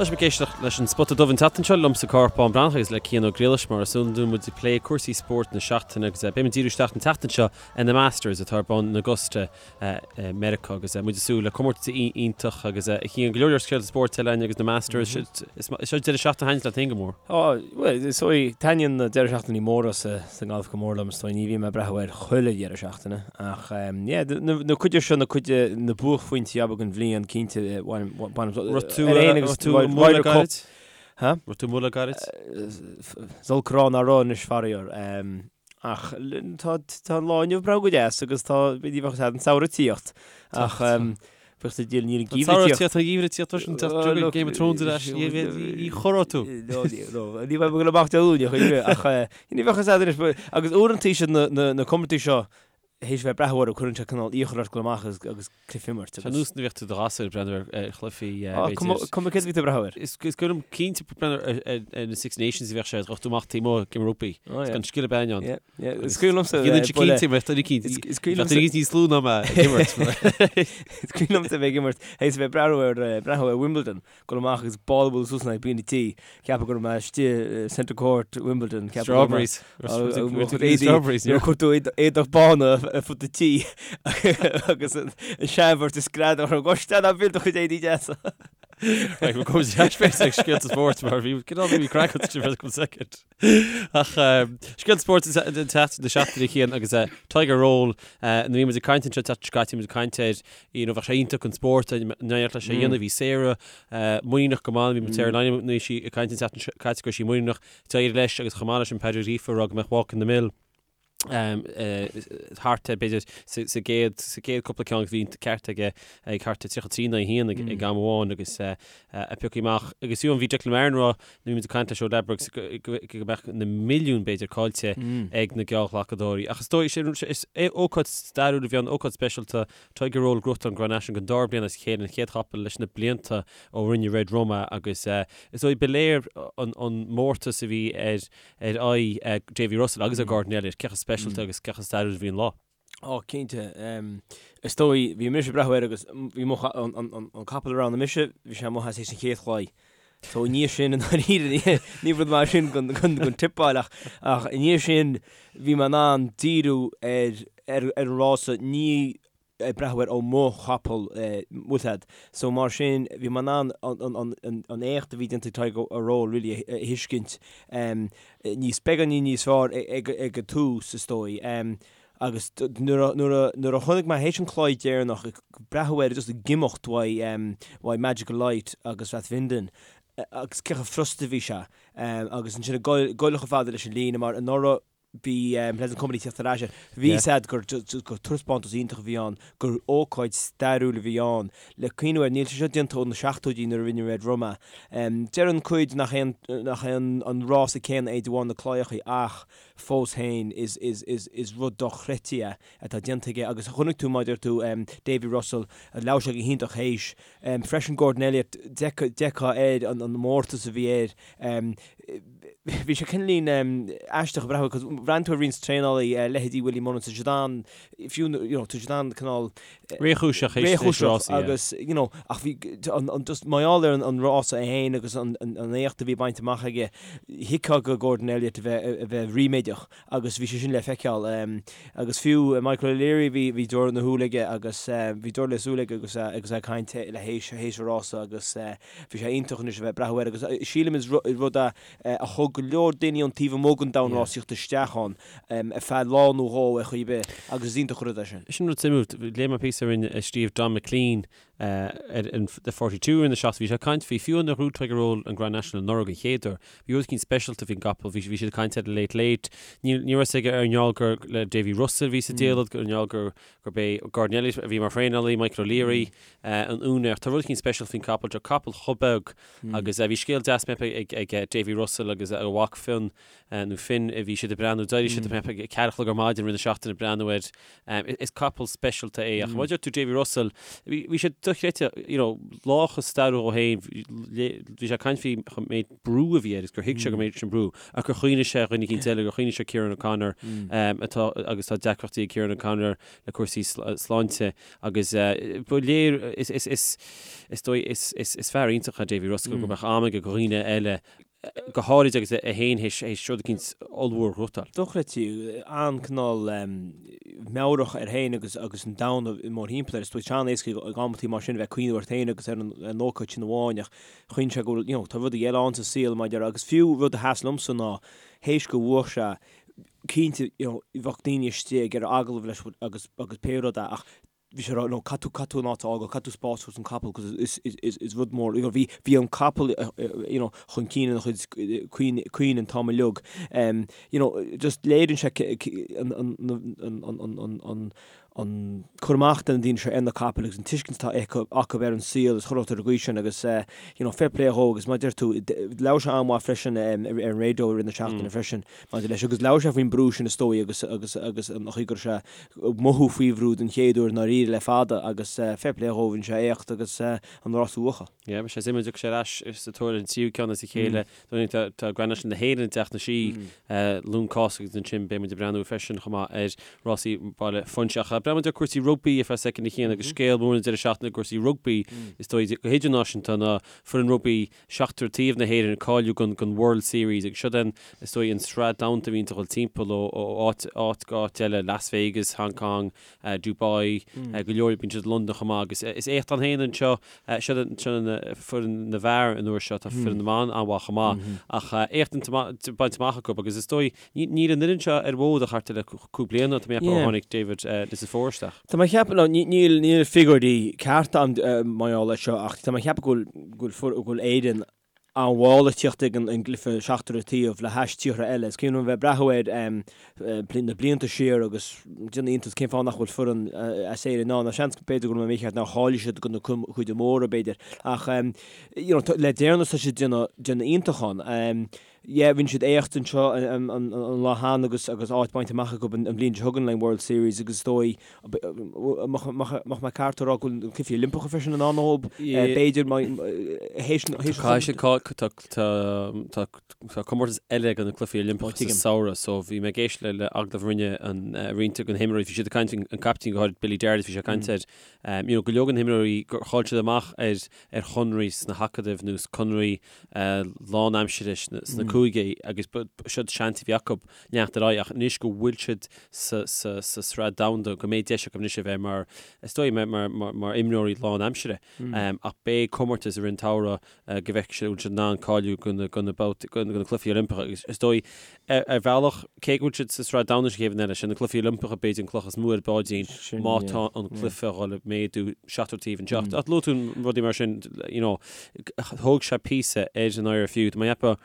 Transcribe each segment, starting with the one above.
Tá sibh ag éisteacht leis an Spota Dubh an tseachtain seo liomsa Cárthach Bán Breathnach agus le Cian Ó Griallais mar is iondúil muid ag plé cúrsaí spóirt na seachtaine agus beidh muid ag díriú isteach an tseachtain seo ar na Masters atá ar bun in Augusta i Meiriceá agus muid ag súil le comórtas iontach agus a Chian go leor leor scéalta spóirt eile againn agus na Masters is seo deireadh seachtaine a thaitníonns leat féin go mór. Ó, bhuel, is dóigh, taitníonn na deireadh seachtainí móra sa ngalf go mór liom, is dóigh, ní bhím ag breathnú air chuile dheireadh seachtaine ach yeah, na cuid seo, na cuid, na buaicphointí ab ea den bhliain, cinnte, bainim, bainim, Raibh tú, ar aon agus raibh tú amuigh le gairid? Ha? Raibh tú amuigh le gairid? Is olc a rá nach raibh anois faraor. Ach tá, tá an lá inniu breá go deas agus tá, ní bheadh an samhradh ag tíocht ach bheadh sa díol níl an geimhreadh ag tíocht. Tá an geimhreadh ag tíocht freisin, tá Game of Thrones ar ais, ní chorróidh tú. No, no, ní bheidh mé ag dul amach Dé Luain, ach ní bheadh a fhios agat anois, agus uaireanta siad na comórtais seo, théis bheith ag breathnú orthu, cuireann sé cineál iachall ort dul amach agus cluiche a imirt. Tá nós nuair a bhíodh tú i do ghasúr ag breathnú ar chluichí, b'fhéidir. Cuma céard a bhí tú ag breathnú air. Is cuimhin liom cinnte breathnú ar na Six Nations a bhíodh sé, ghabh tú amach taobh amuigh ag imirt rugbaí. Is gan scil ar bith ann. Is cuimhin liomsa. Dhéanann sé cinnte, bheadh duine eicínt, Is cuimhin liomsa. Bheadh duine eicínt níos lú ná mé ag imirt. Is cuimhin liomsa bheith ag imirt, théis bheith ag breathnú ar, breathnú ar Wimbledon. Dul amach agus ball a bualadh suas in aghaidh bean an tí, ceapadh go raibh mé istigh i Centre Court Wimbledon, ceapadh go raibh mé Strawberries. Strawberries. Nuair a chuir tú éadach bána ar fud an tí agus an seanbheirt ag screadach orm, Gosh, ná buail do chuid éadaí deasa. Right, we'll go to ag scéalta spóirt mar bhí cineál bhí craic agat for a second. Ach scéalta spóirt den tseachtain na seachtaine Cian agus Tiger Roll nuair a bhí muid ag caint anseo an tseachtain seo caite bhí muid ag caint air you know bheadh sé iontach an spórt an n-éireodh leis é a dhéanamh bhí Sarah muiníneach go maith bhí muid Sarah Lynam nuair a bhí sí ag caint an tseachtain seo caite go raibh sí muiníneach d'éirigh leis agus chomh maith leis sin Padraig Ó Gríofa ag rá go mbeadh Walk in the Mill thart ar b'fhéidir sa gcéad sa gcéad cúpla ceann bhí an ceart aige ag thart ar 33 in aghaidh 1 ag am amháin agus a piocadh amach agus fiú bhí Declan Marron ag rá nuair a bhí muid ag caint leis ó Ladbrokes go mbeadh na milliúin b'fhéidir caillte ag na geallghlacadóirí ach is dóigh is ócáid stairiúil a bhí ann ócáid speisialta Tiger Roll ag gnóthachtáil an Grand National don dara bliain as a chéile an chéad chapall leis na blianta ó rinne Red Rum é agus is dóigh ba léir an mórtas a bhí ar ar aghaidh Davy Russell agus ar Gordon Elliott, cé chomh speisialta agus cé chomh stairiúil a bhí an lá. Ó, cinnte. Is dóigh, bhí mise ag breathnú air agus bhí mo, an capall a roghnaigh mise, bhí sé amuigh as théis an chéad chlaí. So i ndiaidh sin, i ndáiríre, ní rud maith sin don tippáil ach, ach i ndiaidh sin bhí mé in ann díriú ar, ar an rása, ní ag breathnú air ó mo chapall bhfuil a fhios agat. So mar sin bhí mé in ann an éacht a bhí déanta ag Tiger Roll really a thuiscint níos beagáinín níos fearr ag an tús is dóigh. Agus nuair a chonaic mé théis an chlaí deireanach ag breathnú air just ag imeacht uaidh Magical Light agus Rathvinden agus cé chomh frusta a bhí sé agus ansin ag goil chomh fada leis an líne mar anuraidh Bhí Pleasant Company ag teacht ar ais air. Bhí a fhios agat gur taispeántas iontach a bhí ann, gur ócáid stairiúil a bhí ann. Le cuimhniú air, níl sé seo déanta ó na seachtóidí nuair a rinne Red Rum é. Deireann cuid nach é an rása céanna é de bharr na claíochaí ach fós féin is rud dochreidte é atá déanta aige agus chonaic tú mar a deir tú Davy Russell, labhair sé go hiontach théis. Freisin Gordon Elliott, d'fheicfeá air an mórtas a bhí air. Bhí sé cineáilín aisteach ag breathnú cos bhreathnaigh tú ar roinnt traenálaí, leithéidí Willie Mullins, tá siad an, fiú, you know, tá siad an cineál Réchúiseach théis théis rásaí, yeah. agus, you know, ach bhí an, an, just mar gheall ar an rása é féin agus an, an, an éacht a bhí bainte amach aige, thuigfeá do Gordon Elliott a bheith, a bheith ríméadach agus bhí sé sin le feiceáil. Agus fiú Michael O'Leary, bhí, bhí deora na shúil aige agus bhí deora le súil aige agus, agus é ag caint le théis, théis an rása agus, Bhí sé iontach anois a bheith ag breathnú air agus sílim is rud é a thug go leor daoine ón taobh amuigh den domhan rásaíochta isteach ann ar feadh lá nó dhó ar chaoi ar bith agus is iontach an rud é sin. Sin rud suimiúil. Léigh mé píosa a rinne, a scríobh Don McLean ar an The 42 in the Shots. Bhí sé ag caint faoi fiú nuair a ghnóthaigh Tiger Roll an Grand National anuraidh an chéad uair. Bhí rud eicínt speisialta faoin gcapall. Bhí bhí siad ag caint ar Late Late. Ní ní raibh a fhios aige ar an ngeall gur le Davy Russell a bhí sa diallait, ar an ngeall gur gurb é Gordon Elliott a bhí mar thraenálaí, Michael O'Leary an úinéir. Tá rud eicínt speisialta faoin capall seo, capall chomh beag agus bhí scéal deas mé ag ag Davy Russell agus a mhac Fionn nó Finn a bhí siad ag breathnú, d'éirigh siad ag 4 a chlog ar maidin roimh na seachtaine ag breathnú air. Is capall speisialta é ach mar a deir tú Davy Russell, bhí sé dochreidte, you know, lá chomh stairiúil dhó féin, bhí sé ag caint faoi an méid brú a bhí air agus gur thuig sé go méid sin brú ach gur chuimhnigh sé ar dhuine eicínt eile, gur chuimhnigh sé Kieran O'Connor atá agus tá deacrachtaí ag Kieran O'Connor le cúrsaí sláinte agus ba léir is is is is dóigh is is is fear iontach é Davy Russell go mbeadh am aige do dhaoine eile go háirid agus é féin théis rud eicínt ollmhór a ghnóthachtáil. Dochreidte, an-cineál meabhrach air féin agus agus an domhan mórthimpeall air. Is dóigh an-éasca ag amantaí mar sin a bheith ag cuimhneamh ort féin agus ar an ócáid sin amháin ach chuimhnigh sé go bhfuil, you know, tá rudaí eile ann sa saol mar a déarfá agus fiú rud a sheas liomsa ná théis go bhuaigh sé, cinnte, you know, bheadh daoine istigh ag iarraidh agallamh leis agus agus pé rud é ach bhí sé ag rá, no, caithfidh tú, caithfidh tú an áit a fhágáil, caithfidh tú spás a thabhairt don capall cos is, is, is, is rud mór, you know, bhí, bhí an capall, you know, chun cinn ina chuid cuimhne, cuimhne an t-am uilig. Um, you know, just léiríonn sé an, an, an, an, an, an, an, an cur amach de na daoine seo ar na capaill agus an tuiscint atá acu, acu ar an saol is chuile shórt ar an gcaoi sin agus, eh, you know, fair play dhó agus mar a deir tú, labhair sé an-mhaith freisin um, ar, ar an raidió i rith na seachtaine freisin maidir leis agus labhair sé faoin brú sin is dóigh agus, agus, agus an chaoi go raibh sé mothú faoi bhrú den chéad uair i ndáiríre le fada agus fair play dhó, rinne sé éacht agus an rás a bhuachan. Yeah, beidh sé suimiúil an dtiocfaidh sé ar ais sa tóir ar an tríú ceann as a chéile. Tá tá Grand National na hÉireann ag teacht na sí Luan Cásca agus ansin beidh muid ag breathnú freisin chomh maith ar rásaí Baile Phúinse. Ach breathnóidh muid ar cúrsaí rugbaí ar feadh soicind a Chian agus scéal mór an deireadh seachtaine i gcúrsaí rugbaí is dóigh go hidirnáisiúnta ná foireann rugbaí seachtar taobh na hÉireann ag cáiliú don don World Series agus siod an, is dóigh, an sraith domhanda a bhíonn ag dul timpeall ó ó áit áit go áit eile, Las Vegas, Hong Kong, Dubai, go leor, bíonn siad i Londain chomh maith agus is éacht ann féin anseo, siod an siod an foireann na bhfear an uair seo, tá foireann na mban an-mhaith chomh maith ach éacht bainte amach acu agus is dóigh, níl an fhoireann seo ar an bhfód ach thart ar le cúig bliana, tá mé ag ceapadh ó tháinig David Nucifora isteach. Tá mé ag ceapadh, no, níl níl figiúirí cearta agam mar gheall air seo ach tá mé ag ceapadh go bhfuil go bhfuil Éirinn an-mhall ag tíocht ag an gcluiche seachtar an taobh le hais tíortha eile. Is cuimhin liom a bheith ag breathnú air na blianta siar agus déanamh iontas cén fáth nach bhfuil foireann as Éirinn ann. Seans b'fhéidir go raibh mé mícheart nár cháiligh siad do na cúige móra b'fhéidir ach you know le deireanas tá siad déanamh déanamh iontach ann. Yeah, rinne siad éacht anseo an lá cheana agus agus áit bainte amach acu an bhliain seo chugainn le World Series agus is dóigh mbeadh mé ceart a rá go bhfuil na Cluichí Oilimpeacha freisin in ann dóibh, b'fhéidir théis Tá tá comórtas eile do na Cluichí Oilimpeacha sa samhradh so bhí mé ag éisteacht le le agallamh a rinne an roinnt de na himreoirí, bhí siad ag caint an captaen go háirid Billy Dardis bhí sé ag caint air you know go leor de na himreoirí gur chaill siad amach ar ar chonraí sna hacadaimh nó conraí lánaimsire sna cúigí agus siod seans a bhí acu leanacht ar aghaidh ach anois go bhfuil siad sa sraith domhanda go mbeidh deis acu anois a bheith mar is dóigh mar imreoirí lánaimsire ach beidh comórtas i rith an tsamhraidh go bhfeicfidh siad an bhfuil siad in ann cáiliú do na babhtaí do na Cluichí Oilimpeacha agus is dóigh ar bhealach cé go bhfuil siad sa sraith domhanda sa chéad bhliain eile sé na Cluichí Oilimpeacha b'fhéidir an cloch is mó ar an bpáidín má tá an cluiche a dhul ag méadú seachtar taobh anseo. Ach luaigh tú rudaí mar sin you know Thóg sé píosa ar an IRFU. Tá mé ag ceapadh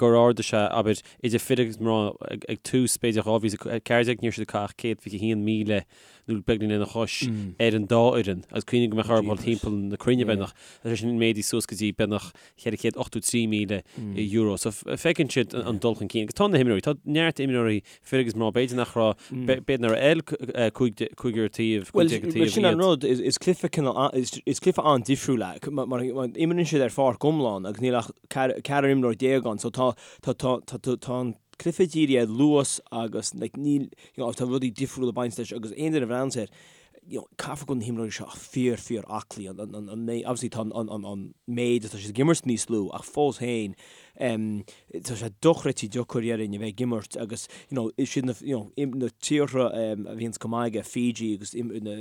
gur ardaigh sé, abair, idir fir agus mná ag tús, b'fhéidir 2014, ní raibh siad ag caitheamh ach 121,000 nó beagnach lena chois ar an dá fhoireann agus cuimhnigh go mbeadh orthu dul timpeall na cruinne beagnach. Tá sé sin méadaithe suas go dtí beagnach €483,000. So feiceann siad an dul chun cinn. Agus tá na himreoirí, tá neart imreoirí fir agus mná, b'fhéidir nach raibh, b'fhéidir nach raibh cúigear taobh, 15 taobh iad. Sin an rud, is cluiche cineál, is cluiche an-difriúil é, mar imríonn siad ar pháirc iomlán agus níl ach ceathrar imreoir déag ann, so tá, tá, tá, tá, tá an cluiche dírithe ar luas agus like níl, you know, tá rudaí difriúla ag baint leis agus aon duine a bhreathnaíonns air, you know, caithfidh go bhfuil na himreoirí seo fíor, fíor aclaí, an, an, an, obviously tá an, an, an méid atá siad ag imirt níos lú ach fós féin, em, tá sé dochreidte deacair déarfainn a bheith ag imirt agus, you know, is iad na, you know, na tíortha, em, a bhíonns go maith aige, Fiji agus im, na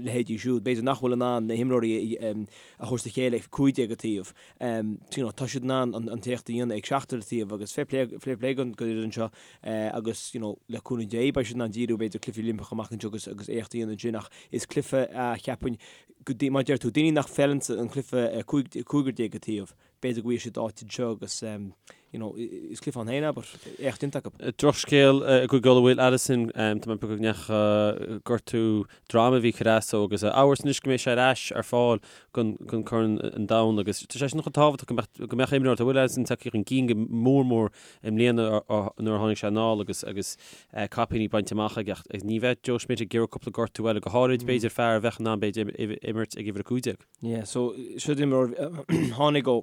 leithéidí siúd, b'fhéidir nach bhfuil in ann na himreoirí a, em, a thabhairt le chéile ag 15 an taobh, em, you know, tá siad in ann an, an t-éacht a dhéanamh ag seachtar an taobh agus fair play, fair play don, don fhoireann seo. agus you know le cúnamh Dé beidh siad in ann díriú b'fhéidir cluichí Oilimpeacha amach anseo agus agus éacht a dhéanamh ansin ach is cluiche a cheapfainn go mar a deir tú daoine nach bhfeileann an cluiche 15 an taobh. b'fhéidir go bhfaighidh siad áit anseo agus you know, is cluiche ann féin é, but éacht déanta acu. Drochscéal i gCúige Uladh Will Addison, tá mé ag piocadh go ndeacha gortú droma a bhí ag cur as dó agus amhras anois go mbeidh sé ar ais ar fáil don Corn an Domhain agus tá sé sin chomh tábhachtach go mbeadh go mbeadh imreoir, tá Will Addison tagtha chun cinn go mór mór i mbliana nuair a tháinig sé anall agus agus caipíní bainte amach aige ach ní bheadh Joe Schmidt ag iarraidh cúpla gortú eile, go háirid b'fhéidir fear a bheadh in ann b'fhéidir imirt ag uimhir 15. Yeah, so seo imreoir tháinig ó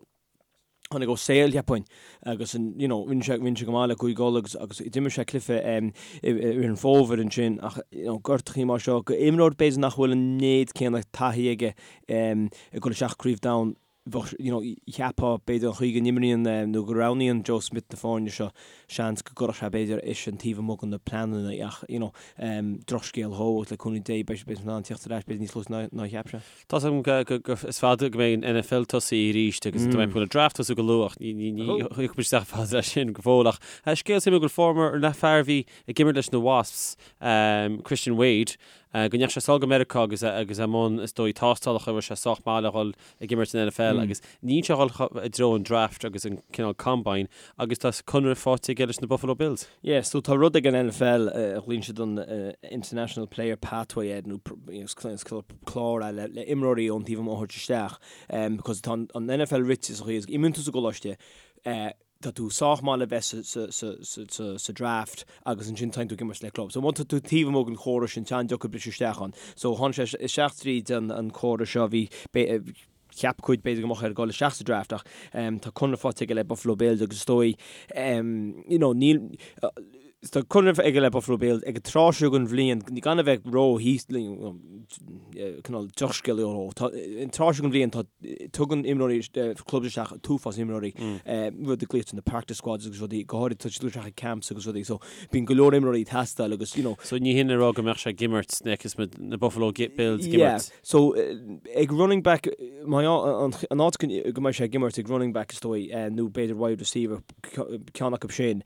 tháinig ó Sale cheapfainn agus an you know rinne sé rinne sé go maith le Cúige Uladh agus agus d'imir sé cluiche um, i i rith an fómhair ansin ach you know gortachaí mar seo go imreoir b'fhéidir nach bhfuil an méid céanna taithí aige um, ag dul isteach Craobh Domhain bheadh you know cheapfá b'fhéidir an chaoi go n-imríonn um, nó go roghnaíonn Joe Schmidt na foirne seo seans go gcuirfeadh sé b'fhéidir eisean taobh amuigh de na pleananna ach you know um, drochscéal dhó agus le cúnamh Dé beidh beidh sé in ann teacht ar ais b'fhéidir níos luaithe ná ná a cheap sé. Tá 's agam go is fada go mbeidh an NFL tosaithe arís agus tá mé ag an draft tosú go luath ach ní thiocfaidh muid isteach fada leis sin go fóill ach scéal suimiúil go bhfuair an fear a bhí ag imirt leis na Wasps, Christian Wade, go ndeachaigh sé sall go Meiriceá agus agus i mbun is dóigh tástálacha a raibh sé sách maith le dhul ag imirt san NFL agus níl sé ag dhul i dtreo an draft agus an cineál combine agus tá conradh faighte aige leis na Buffalo Bills. Yeah, so tá rud ag an NFL a ghlaonn siad an International Player Pathway air nó clár é le imreoirí ón taobh amuigh a thabhairt isteach because tá an NFL rite sa chaoi is imíonn tú sa gcoláiste tá tú sách maith le bheith sa draft agus ansin téann tú ag imirt le club. So má tá tú taobh amuigh den chóras sin, tá an-deacair briseadh isteach ann. So tháinig sé isteach tríd an córas seo, bhí cheap cuid b'fhéidir go mbeadh air dul isteach sa draft ach tá conradh faighte aige le Buffalo Bills agus is dóigh you know níl tá conradh aige le Buffalo Bills ag an tráth seo den bhliain gan a bheith ró cineál drochscéal ó tá an tráth seo den bhliain tá tugann imreoirí clubs isteach an t-uafás imreoirí rud a glaoitear na practice squads agus rudaí go háirid tá siad isteach ag camps agus rudaí so bíonn go leor imreoirí ag teastáil agus you know So ní hin le rá go mbeadh sé ag imirt sna na Buffalo Bills ag imirt. Yeah so ag running back má an áit go mbeidh sé ag imirt ag running back is dóigh nó b'fhéidir wide receiver ceann acu sin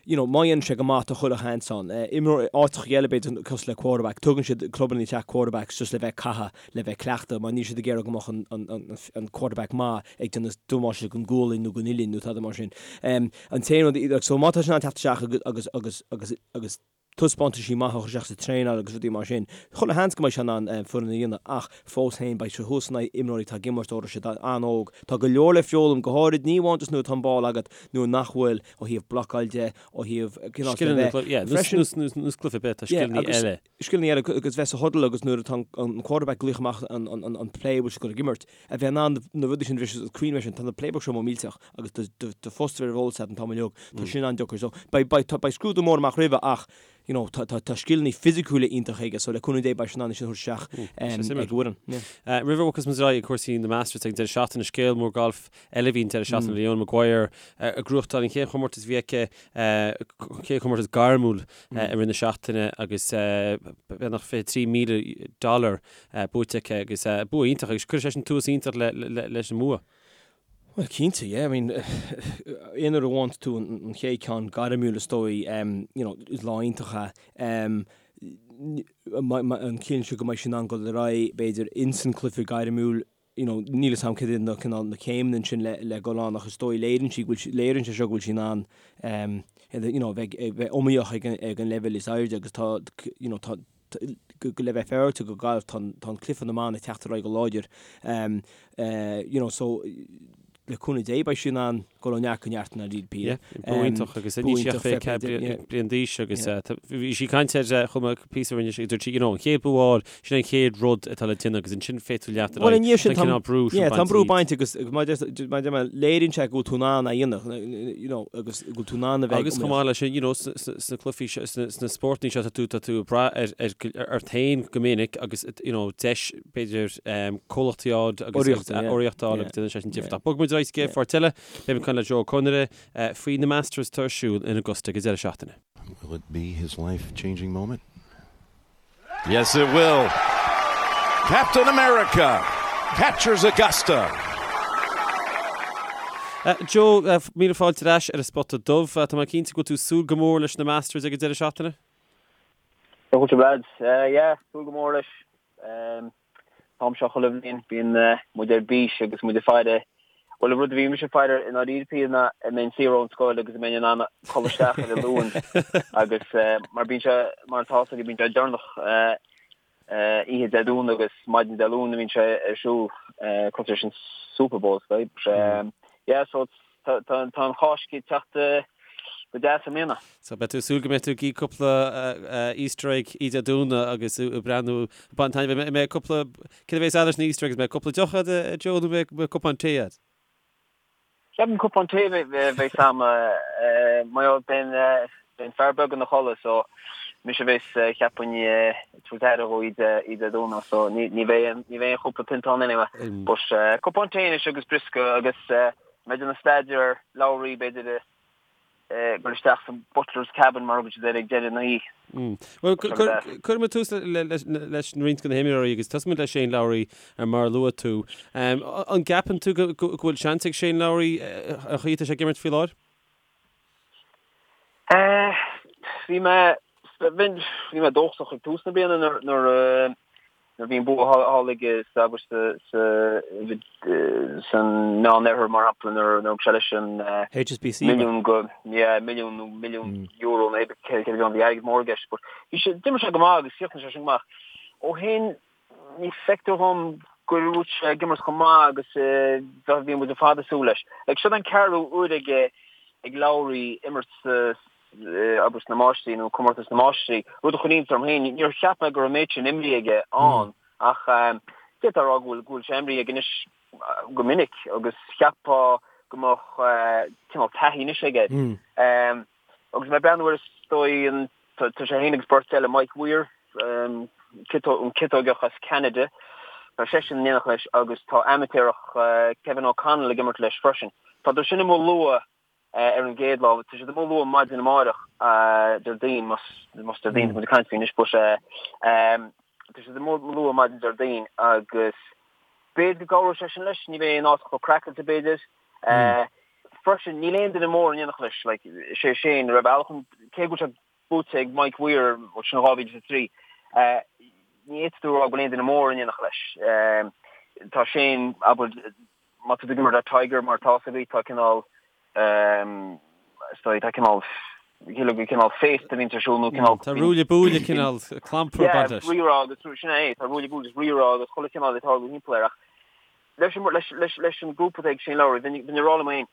you know, má dhéanann sé go maith tá chuile sheans ann. Imreoir áiteacha eile b'fhéidir cosúil le quarterback, tugann siad clubanna isteach quarterbacks just le bheith ag caitheamh, le bheith ag cleachtadh mar níl siad ag iarraidh go mbeadh an, an, an, an quarterback maith ag déanamh damáiste don gualainn nó don uillinn nó tada mar sin. An t-aon rud, so má tá sé in ann teacht isteach agus, agus, agus, agus, agus taispeántaisí maithe a chur isteach sa traenáil agus rudaí mar sin, chuile sheans go mbeidh sé in ann foireann a dhéanamh ach fós féin beidh sé thuas in aghaidh imreoirí atá ag imirt ó siad an-óg. Tá go leor le foghlaim, go háirid ní amháin just nuair atá an ball agat nuair nach bhfuil, ó thaobh blocáil de, ó thaobh cineál scileanna, yeah, freisin, nós cluiche ar bith, tá scileanna eile. Scileanna eile agus bheith sa huddle agus nuair atá an quarterback ag glaoch amach an play a bhfuil siad ag dul ag imirt, a bheith in ann na rudaí sin a bhriseadh agus cuimhnigh sin, tá na playbooks seo millteach agus do phost a bheith ar eolas agat an t-am uilig, tá sin an-deacair. So beidh, beidh, beidh scrúdú mór amach roimhe ach you know, tá, tá, tá scileanna fisiciúla iontach aige so le cúnamh Dé beidh sé in ann é sin a thabhairt isteach ag an bhfoireann. Yeah. Roimh a bhogfas muid ar aghaidh ag cúrsaí na Masters ag an deireadh seachtaine, scéal mór gailf eile a bhí an deireadh seachtaine, Leona Maguire ag gnóthachtáil an chéad chomórtas a bhí aici, chéad chomórtas gairmiúil i rith na seachtaine agus beagnach 23,000 dollar buaite aici agus bua iontach agus cuireann sé sin tús iontach leis an mbua. Bhuel, cinnte, yeah. I mean, aon uair a bhuann tú an chéad ceann gairmiúil is dóigh, you know, is lá iontach é. An ciallaíonn sé go mbeidh sí in ann dul ar aghaidh, b'fhéidir, ins an cluiche gairmiúil, you know, níl 'fhios a'm cad iad na cineál na céimeanna ansin le le dul ann ach is dóigh léiríonn sí go bhfuil sí léiríonn sé seo go bhfuil sí in ann um, you know, bheith bheith iomaíoch ag an ag an leibhéal is airde agus tá you know, tá go le bheith féaráilte go galf tá tá an cluiche na mban ag teacht ar aghaidh go láidir um, uh, you know, so le cúnamh Dé beidh sí in ann dul ó neart go neart in Peter. Yeah, bua iontach agus níl sí ach 24 bliain d'aois agus bhí sí ag caint ar chomh maith píosa rinne sí dúirt sí you know an chéad bua a fháil sin an chéad rud atá le déanamh agus ansin féadfaidh tú leanacht ar aghaidh. Bhuel sin tá an brú sin bainte. Tá an brú bainte agus mar a deir mé léiríonn sé go bhfuil tú in ann a dhéanamh you know agus go bhfuil tú in ann a bheith Agus chomh maith leis sin you know sna cluichí seo sna spórtanna seo tá tú tá tú ag brath ar ar ort féin go minic agus you know deis b'fhéidir comhlacht a fháil agus urraíocht a fháil agus déanann sé sin difear. Bogfaidh muid ar aghaidh sa gcéad pháirt eile, beidh muid ag caint le Joe Ó Conaire faoi na Masters atá ar siúl in Augusta ag an deireadh seachtaine. Will it be his life changing moment? Yes it will. Captain America captures Augusta. Joe, míle fáilte ar ais ar an Spota Dubh. Tá mé cinnte go bhfuil tú ag súil go mór leis na Masters ag an deireadh seachtaine? Fáilte lads. Yeah, súil go mór leis. An t-am seo chuile bhliain bíonn muid ar bís agus muid ag faire. Bhuel, an rud a bhí mise ag faire i ndáiríre píre ná an mbeinn saor ón scoil agus an mbeinn in ann codladh isteach ar an Luan agus mar bíonn sé, mar atá fhios agaibh, bíonn sé deireanach oíche Dé Domhnaigh agus maidin Dé Luain a bhíonn sé ar siúl cosúil leis an Super Bowl is dóigh. Yeah, so tá an Cháisc ag teacht go deas i mbliana. So beidh tú ag súil go mbeidh tú ag ithe cúpla Easter egg oíche Dé Domhnaigh agus ag breathnú, ag baint taitneamh. An mbeidh cúpla, céard a bheas agat leis na Easter eggs, an mbeidh cúpla deoch agat a Joe nó an mbeidh cupán tae agat? Ceapaim cupán tae a bheas a'm mar gheall beidh an fear beag ina chodladh so mise a bheas cheapfainn ag tabhairt aire dhó oíche Dé Domhnaigh so ní bheidh ní bheidh aon chúpla pionta ann anyway. But cupán tae anois agus briosca agus mé ag déanamh staidéar ar leabhraí b'fhéidir dul isteach sa butler's cabin mar a thugann siad air ag deireadh na hoíche. Bhuel, cuirfidh muid tús leis roinnt de na himreoirí agus tosóidh muid le Shane Lowry mar a luaigh tú. An gceapann tú go bhfuil seans ag Shane Lowry an chaoi atá sé ag imirt faoi láthair? Bhí mé bhí mé dóchasach ag tús na bliana nuair a Nuair a bhí an bua thall aige sa abair sa sa san Meán Oirthear mar shampla nuair a thug sé leis an HSBC milliún go yeah milliún nó milliún euro nó cé cé bhí airgead mór i gceist but bhí sé d'imir sé go maith agus chríochnaigh sé sin go maith. Ó shin ní feictear dhom go bhfuil sé ag imirt chomh maith agus a bhí muid ar fad ag súil leis. Like seo an ceathrú uair aige ag Lowry imirt sa abair sna Máistrí nó Comórtas na Máistrí, rud a chuir iontas orm féin. Níor cheap mé go raibh an méid sin imrithe aige ann ach d'fhéadfá a rá go bhfuil go bhfuil sé imrithe aige anois go minic agus cheapfá go mbeadh cineál taithí anois aige. Agus mé ag breathnú air is dóigh an tá sé féin agus beirt eile, Mike Weir, an ciotóigeach as Ceanada, tá seisean in éineacht leis agus tá amaitéarach Kevin O'Connell ag imirt leis freisin. Tá siad sin amuigh luath ar an gcéad lá. Tá siad amuigh luath maidin amáireach, Déardaoin, más Déardaoin atá muid ag caint faoi anois, but tá siad amuigh luath maidin Déardaoin agus b'fhéidir go gcabhróidh sé sin leis, ní bheidh an áit chomh craiceáilte b'fhéidir. Freisin, níl aon duine mór in éineacht leis, like, is é Shane, ar bhealach, cé go bhfuil sé buaite ag Mike Weir, sin 2003, ní fhéadfaidh tú a rá go bhfuil aon duine mór in éineacht leis. Tá Shane, abair, má tá tú ag imirt le Tiger mar atá fhios agaibh, tá cineál, is dóigh, tá cineál, cineál, cineál féasta a bhíonns ar siúl nó cineál. Tá ruaille buaille cineál clampar ag baint leis. Yeah, rírá agus, sin é, tá ruaille buaille agus rírá agus chuile chineál ag tarlú thimpeall air ach leis an, leis, leis, leis an grúpa atá ag Shane Lowry, bheinn, bheinn ag rá liom féin,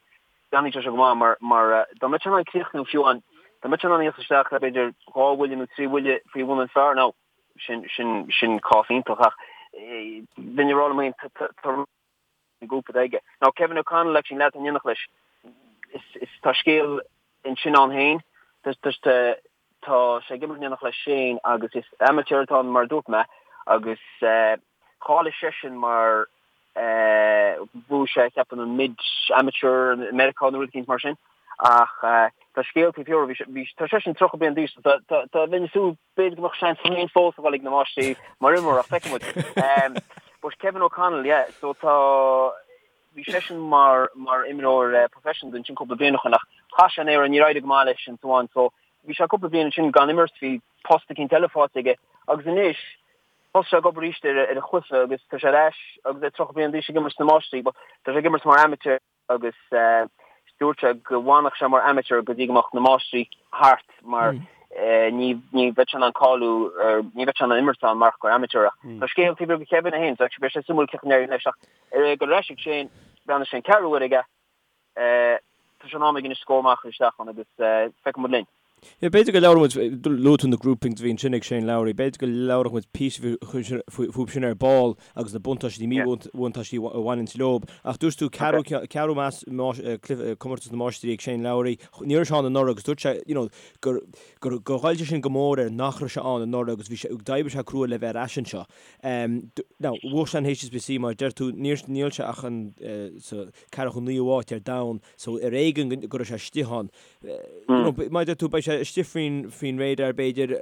déanfaidh sé seo go maith mar, mar dá mbeadh sé in ann críochnú fiú amháin, dá mbeadh sé in ann íoc isteach le b'fhéidir dhá bhuille nó trí bhuille faoi bhun an phar now, Sin, sin, sin cás iontach ach bheinn ag rá liom féin tá, tá an grúpa atá aige. Now Kevin O'Connell actually an leaid atá in éineacht leis, is, is, tá scéal ansin ann féin. Tá, tá, tá, tá sé ag imirt in éineacht le Shane agus is amateur atá ann mar a dúirt mé agus cháiligh seisean mar bhuaigh sé ceapaim an mid amateur i Meiriceá nó rud eicínt mar sin ach tá scéal taobh thiar bhí, tá seisean 30 bliain d'aois so tá, tá, tá, bheinn ag súil B'fhéidir go mbeadh seans féin fós a dhul ag na Máistrí mar imreoir ach feicfidh muid. But Kevin O'Connell, yeah, so tá, bhí seisean mar, mar imreoir professional ansin cúpla bliain ó shin ach chaith sé an aer, níor éirigh go maith leis and so on. So bhí sé cúpla bliain ansin gan imirt, bhí post eicínt eile faighte aige agus anois thosaigh sé ag obair arís ar a chluiche agus tá sé ar ais agus é 30 bliain d'aois ag imirt sna Máistrí but tá sé ag imirt mar amateur. agus dúirt sé go bhfanfadh sé mar amateur go dtí go mbeadh na Máistrí thart mar ní ní bheadh sé in ann cáiliú ní bheadh sé in ann imirt ann mar gur amateur ach tá scéal taobh thiar de Kevin é féin so actually beidh sé suimiúil cén chaoi a n-éireoidh leis ach ar ag dul ar ais ag Shane breathnaigh sé an ceathrú uair aige tá sé in am aige anois scór maith a chur isteach ann agus feicfidh muid linn. Yeah, b'fhéidir go labhróidh muid, luaigh tú na groupings a bhí ansin ag Shane Lowry, b'fhéidir go labhródh muid píosa fúthu sin ar ball agus na buntáistí, míbhuntáistí a bhaineanns leob. Ach dúirt tú ceathrú, ceathrú comórtas na Máistrí ag Shane Lowry, ní raibh sé ann anuraidh agus dúirt sé, you know, gur, gur, gur ghoill sé sin go mór air nach raibh sé ann anuraidh agus bhí sé, d'oibrigh sé crua le bheith ar ais anseo. Now, bhuaigh sé an HSBC mar deir tú, níor, níl sé ach an, sa ceathracha naoú háit ar domhan, so ar éigean go raibh sé istigh ann. Mar a deir tú, beidh sé istigh faoin radar b'fhéidir,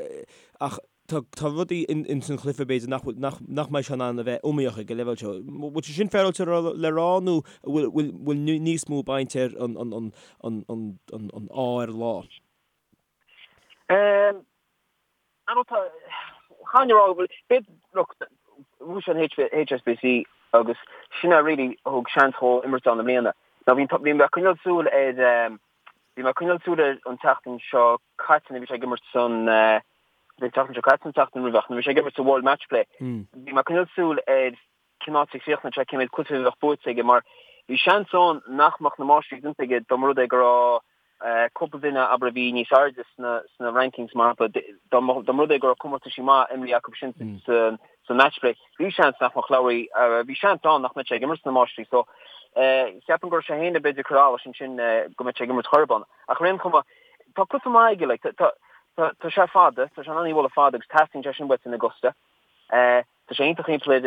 ach tá tá rudaí in san chluiche b'fhéidir nach nach nach mbeidh sé in ann a bheith iomaíoch ag an leibhéal seo. Bhfuil sé sin féaráilte le rá nó bhfuil bhfuil bhfuil níos mó baint ar an an an an an an an ádh ar an lá? I don't know, chan rá go bhfuil, b'fhéidir, look, bhuaigh sé an HSBC agus sin é really a thug seans dhó imirt ann i mbliana. Now bhí bhí mé ag coinneáil súil ar bhí mé ag coinneáil súil air an tseachtain seo caite nuair a bhí sé ag imirt san an tseachtain seo caite nó an tseachtain roimhe ach nuair a bhí sé ag imirt sa World Matchplay bhí mé ag coinneáil súil ar cén áit a chríochnódh sé, cé mhéad cluiche a bheadh buaite aige mar bhí seans ann nach mbeadh na Máistrí déanta aige dá mba rud é go raibh cúpla duine, abair, a bhí níos airde sna sna rankings mar shampla, dá mba dá mba rud é go raibh comórtaisí maith imrithe acu sin sa sa Matchplay, bhí seans nach mbeadh Lowry, bhí seans ann nach mbeadh sé ag imirt sna Máistrí so cheapfainn go raibh sé féin b'fhéidir ag cur allais ansin go mbeadh sé ag imirt chor ar bith. Ach ar aon chuma, tá cluiche maith aige, like, tá tá tá sé fada, tá sé in ann í a bhualadh fada agus teastaíonn sé sin uait in Augusta. Tá sé iontach thimpeall ar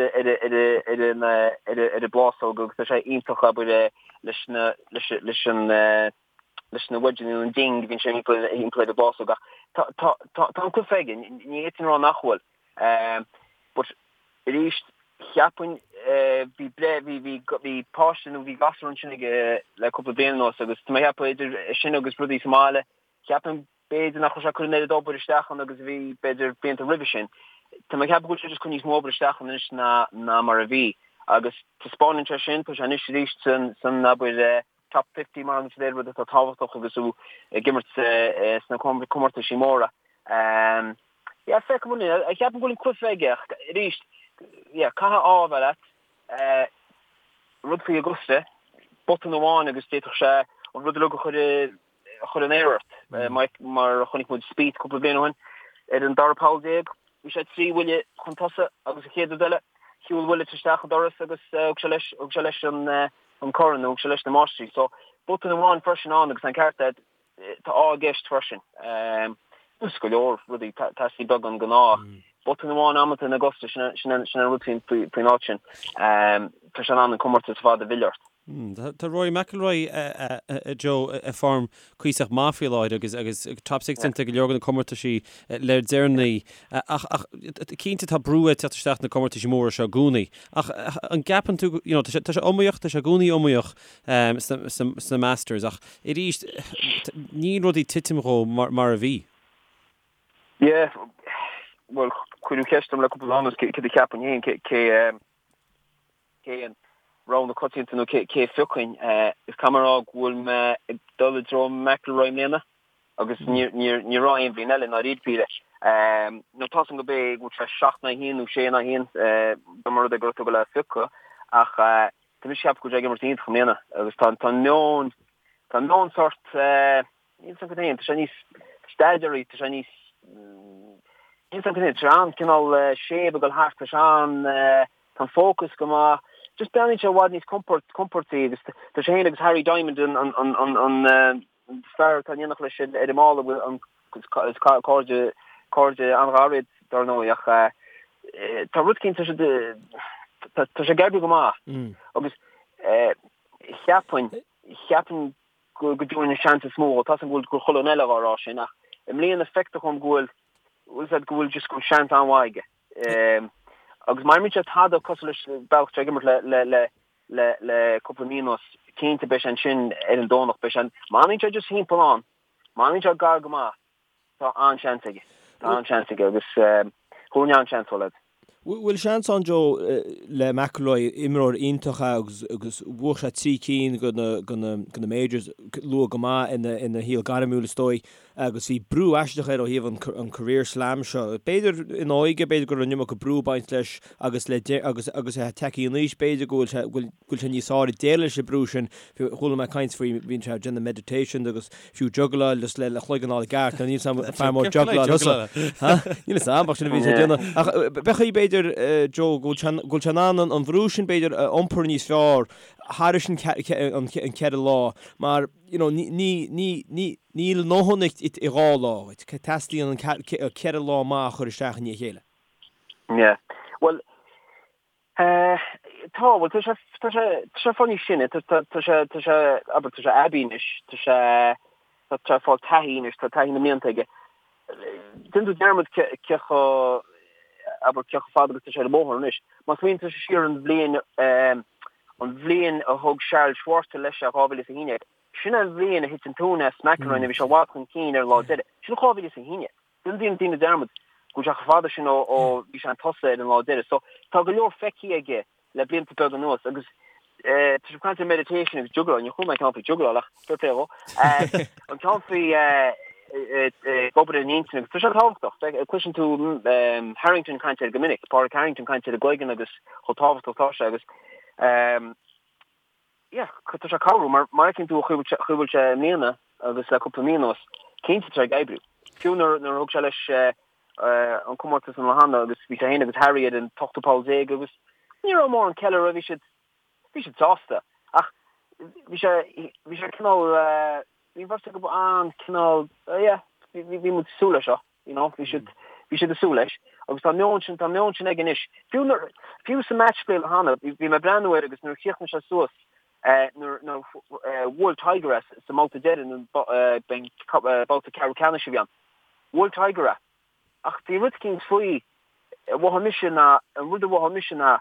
an ar an bplásóg agus tá sé iontach abair leis na leis leis an leis na wedgeanna nó an ding a bhíonn sé thimpeall thimpeall ar an bplásóg ach tá tá tá tá an cluiche aige, ní fhéadfainn a rá nach bhfuil. But arís cheapfainn bhí breith bhí bhí bhí páiste nó bhí gasúr ansin aige le cúpla bliain anuas agus tá mé ag ceapadh idir sin agus rudaí sa mbaile cheapfainn B'fhéidir nach raibh sé ag cur an oiread obair isteach ann agus a bhí, b'fhéidir, blianta roimhe sin. Tá mé ag ceapadh go bhfuil sé just ag cur níos mó obair isteach ann anois ná ná mar a bhí. Agus taispeánann sé sin, tá sé anois arís san, san, abair, top 50 mar an rud atá tábhachtach agus tú ag imirt sna comórtaisí móra. Yeah, feicfidh muid. Ceapaim go bhfuil an cluiche aige ach arís, yeah, caithfidh ádh a bheith leat. Rud faoi Augusta, botún amháin agus d'fhéadfadh sé an rud uilig a chur i a chur in aer ort. Mar a chonaic muid Spieth cúpla bliain ó shin, ar an dara poll bhí sé 3 bhuille chun tosaigh agus an chéad rud eile, shiúil Willett isteach an doras agus thug sé leis, thug sé leis an corn, thug sé leis na Máistrí. So, botún amháin freisin ann agus an ceart agat, tá ádh i gceist freisin. Agus go leor rudaí, teastaíonn beagán den ádh. Botún amháin amanta in Augusta, sin an rud faoin áit sin. Tá sé in ann an comórtas ar fad a mhilleadh ort. Tá Rory McIlroy, a Joe, i form cuíosach maith faoi láthair agus agus top six déanta go leor de na comórtaisí le deireanaí. Ach ach cinnte tá brú ag teacht isteach na comórtaisí móra seo i gcónaí. Ach an gceapann tú, you know, tá sé tá sé iomaíoch, tá sé i gcónaí iomaíoch sna sna Masters ach arís níl rudaí ag titim dhó mar mar a bhí. Yeah, bhuel cuireadh ceist orm le cúpla lá anuas cé céard a cheapfainn féin cé cé cé an rogha na coitianta nó cé a phiocfainn. Is caithfidh mé a rá go bhfuil mé ag dul i dtreo McIlroy i mbliana agus ní raibh aon bhliain eile i ndáiríre píre. Nó tá 's agam go b'é go bhfuil sé 7 in aghaidh 1 nó 6 in aghaidh 1 dá mba rud é go raibh tú ag dul é a phiocadh ach tá mise ag ceapadh go bhfuil sé ag imirt iontach i mbliana agus tá an meon tá an meon sort Níl 's agam féin, tá sé níos steadier, tá sé níos, níl 's agam féin, tá sé an-cineál séimh ag dul thart, tá sé an, tá an focus go maith, just breathnaíonn sé i bhfad níos compord, compordaí agus tá sé féin agus Harry Diamond an, an, an, an, an fear atá in éineacht leis ar an mballa bhfuil an, is cairde, cairde an-ghar iad dar ndóigh ach tá rud éicint, tá sé, tá sé ag oibriú go maith agus cheapfainn, cheapfainn go dtabharfainn an seans is mó dhó. Tá 's agam go bhfuil gur chuile dhuine eile dhá rá sin ach i mbliana feictear dhom go bhfuil, bhfuil 's agat, go bhfuil just go bhfuil seans an-mhaith aige. Agus má imríonn sé tada cosúil leis an bealach atá sé ag imirt le le le le le cúpla mí anuas, cinnte beidh sé ansin ar an Domhnach, beidh sé, má fhanann sé just thimpeall ann, má fhanann sé gar go maith, Tá an-seans aige. Tá an-seans aige agus thabharfainn an-seans dó, lads. Bhfuil seans ann, Joe, le McIlroy, imreoir iontach é agus agus bhuaigh sé 3 cinn de na de na de na majors luath go maith ina ina shaol gairmiúil is dóigh agus bhí brú aisteach air ó thaobh an an career slam seo. B'fhéidir ina óige, b'fhéidir go raibh an iomarca brú ag baint leis agus le agus agus é tagtha in aois b'fhéidir go bhfuil sé go bhfuil go bhfuil sé níos fearr ag déileáil leis an brú sin. Chuala mé caint faoi, bhíonn sé ag déanamh meditation agus fiú juggláil just le cloigeann a fháil i gceart. Níl 's agam fear mór juggláil thusa. Níl 's agam ach sin a bhíonn sé ag déanamh. Ach b'fhéidir b'fhéidir Joe go bhfuil sé in ann an bhrú sin b'fhéidir a iompar níos fearr thairis an ceithre lá mar you know níl a ndóthain i dhá lá dhuit. Teastaíonn an ceithre lá maith a chur isteach i ndiaidh a chéile. Yeah. Well, Tá, bhuel, tá sé, tá sé, tá sé fáil níos sine, tá, tá, tá sé, tá sé, abair, tá sé aibí anois, tá sé, tá sé ag fáil taithí anois, tá taithí na mblianta aige. Déanann tú dearmad cé, cé chomh, abair, cé chomh fada agus tá sé ar an mbóthar anois. Má smaoiníonn tú siar an bhliain, an bhliain a thug Charl Schwartzel leis é, 2011, sin an bhliain a thit an tóin as McIlroy, bhí sé i bhfad chun cinn ar an lá deiridh. Sin 2011. Déanann daoine dearmad go bhfuil sé chomh fada sin ó bhí sé chun tosaigh ar an lá deiridh. So, tá go leor feicthe aige le blianta beaga anuas agus. Tá sibh ag caint ar meditation agus juggláil, níor chuala mé ceann faoi juggláil ach fair play dhó. An ceann faoi ag obair ar an intinn agus tá sé tábhachtach. Cloiseann tú Harrington ag caint air go minic, Pádraig Harrington ag caint ar an gcloigeann agus chomh tábhachtach atá sé agus yeah, tá sé ag cabhrú mar mar fheiceann tú an chaoi a bhfuil sé i mbliana agus le cúpla mí anuas, cinnte tá sé ag oibriú. Fiú nuair a thug sé leis an comórtas an lá cheana agus bhí sé féin agus Harry ar an t-ochtú poll déag agus ní raibh mórán ceiliúradh, bhí siad, bhí siad sásta ach bhí sé, bhí sé cineál, bhí an bheirt acu an-cineál, yeah, bhí, bhí muid ag súil leis seo, you know, bhí siad, bhí siad ag súil leis agus tá an meon sin, tá an meon sin aige anois. Fiú nuair, fiú sa match play an lá cheana, bhí, bhí mé ag breathnú air agus nuair a chríochnaigh sé suas, nuair, nuair a bhuail Tiger é sa mbabhta deiridh, babhta ceathrú ceannais a bhí ann. Bhuail Tiger é. Ach bhí rud eicínt faoi, a mhothaigh mise ná, an rud a mhothaigh mise ná,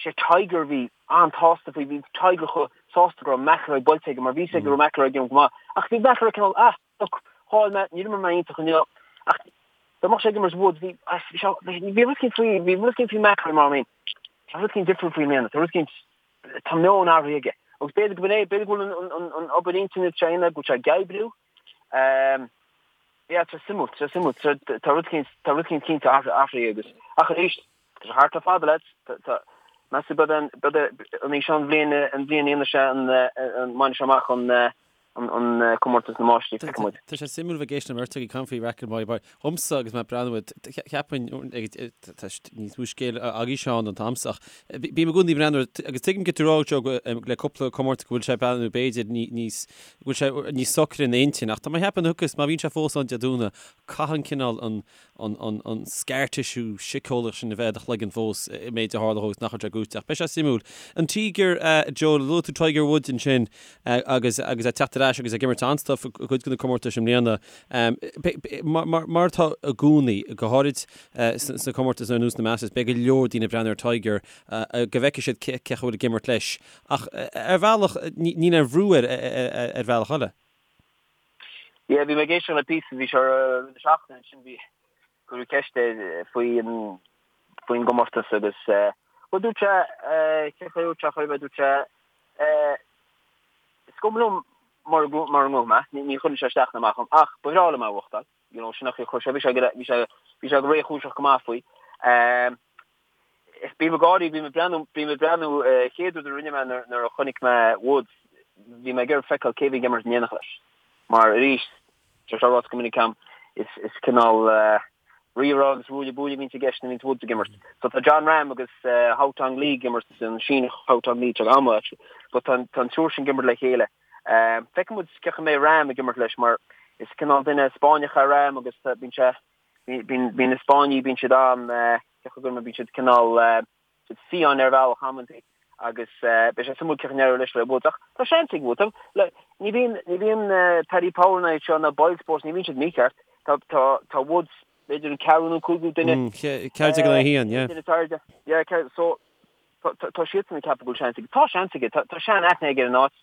sé Tiger a bhí an-tsásta faoi, bhí Tiger chomh sásta go raibh McIlroy buailte aige mar bhí 'fhios aige go raibh McIlroy ag imirt go maith. Ach bhí McIlroy cineál, ah, look, chaill mé, níor imir mé iontach inniu. Ach dá mbeadh sé ag imirt Woods, bhí, bhí sé, bhí rud eicínt faoi, bhí rud eicínt faoi McIlroy mar I mean, tá rud eicínt difriúil faoi i mbliana, tá rud eicínt, tá meon athraithe aige. Agus b'fhéidir go b'in é, b'fhéidir go bhfuil an, an, an obair intinne atá sé a dhéanamh, go bhfuil sé ag oibriú. Yeah, tá sé suimiúil, tá sé suimiúil. Tá rud eicínt, tá rud eicínt cinnte athraithe agus, ach arís, tá sé thart le fada, lads. Tá, meas tú, beidh an, beidh an í seo an bhliain, an bhliain a dhéanfaidh sé an, an mbainfidh sé amach an, an, an comórtas na máistrí, feicfidh muid. Tá sé suimiúil bheith ag éisteacht le beirt agaibh ag caint faoi McIlroy, mar dhomsa agus mé ag breathnú air, cheapfainn, tá níos mó scéal agaibh Seán ná a'msa ach bím i gcónaí ag breathnú air agus tuigim cad tá tú a rá Joe le cúpla comórtas go bhfuil sé ag breathnú b'fhéidir níos go bhfuil sé níos socra ina intinn ach tá mé ag ceapadh agus má bhíonn sé fós ann Dé Domhnaigh, caithfidh an cineál an, an, an, an scar tissue síceolaíoch sin a bheith i do chloigeann fós i méid a tharla dhó agus nach bhfuil sé gnóite ach beidh sé suimiúil. An Tíogar, Joe, luaigh tú Tiger Woods ansin agus, agus é ag teacht ar ais agus ag imirt an-stuif i gcuid de na comórtais i mbliana. Mar, mar, mar atá i gcónaí, go háirid sna comórtais ar nós na Masters, beidh go leor daoine ag breathnú ar Tiger go bhfeicfidh siad cé chaoi a bhfuil ag imirt leis. Ach ar bhealach, níl aon bhrú air ar bhealach eile. Yeah, bhí mé ag éisteacht le píosa, bhí sé ar rith na seachtaine ansin, bhí, cuireadh ceist air faoi an, faoin gcomórtas agus, bhuel dúirt sé, cén chaoi a dúirt sé, chuir mé, dúirt sé, is cuma liom mura, mura ngnóthóidh mé, ní chuireann sé isteach ná amach orm, ach ba bhreá liom é a bhuachtáil, you know, sin an chaoi a chuir sé, bhí sé, bhí sé, bhí sé go réchúiseach go maith faoi. Is bím ag gáirí, bím ag breathnú, bím ag breathnú, chéad rud a rinne mé nuair a chonaic mé Woods, bhí mé ag iarraidh feiceáil cé bhí ag imirt in éineacht leis. Mar arís, tá sé ráite go minic agam, is is cineál rírá agus ruaille buaille a bhíonns i gceist nuair a bhíonns Woods ag imirt. So tá Jon Rahm agus Haotong Li ag imirt, an Síneach Haotong Li, tá an-mhaith actually, but tá an triúr sin ag imirt le chéile. Feicfidh muid cén chaoi a mbeidh Rahm ag imirt leis mar is cineál duine Spáinneach é Rahm agus bíonn sé, Bíonn na Spáinnigh, bíonn siad an, cén chaoi a gcuirfidh mé, bíonn siad cineál, siad fiáin ar bhealach amantaí agus beidh sé suimiúil cén chaoi a n-éireoidh leis le Woods ach tá seans ag Woods. Ní bhíonn, ní bhíonn Paddy Power ná iad seo ná Boyle Sports, ní bhíonn siad mícheart. Tá, tá, tá Woods b'fhéidir an ceathrú nó cúigiú duine. 14 in aghaidh 1, yeah. Duine is airde. Yeah, so tá, tá siadsan ag ceapadh go bhfuil seans aige. Tá seans aige, tá, tá sean-aithne aige ar an áit.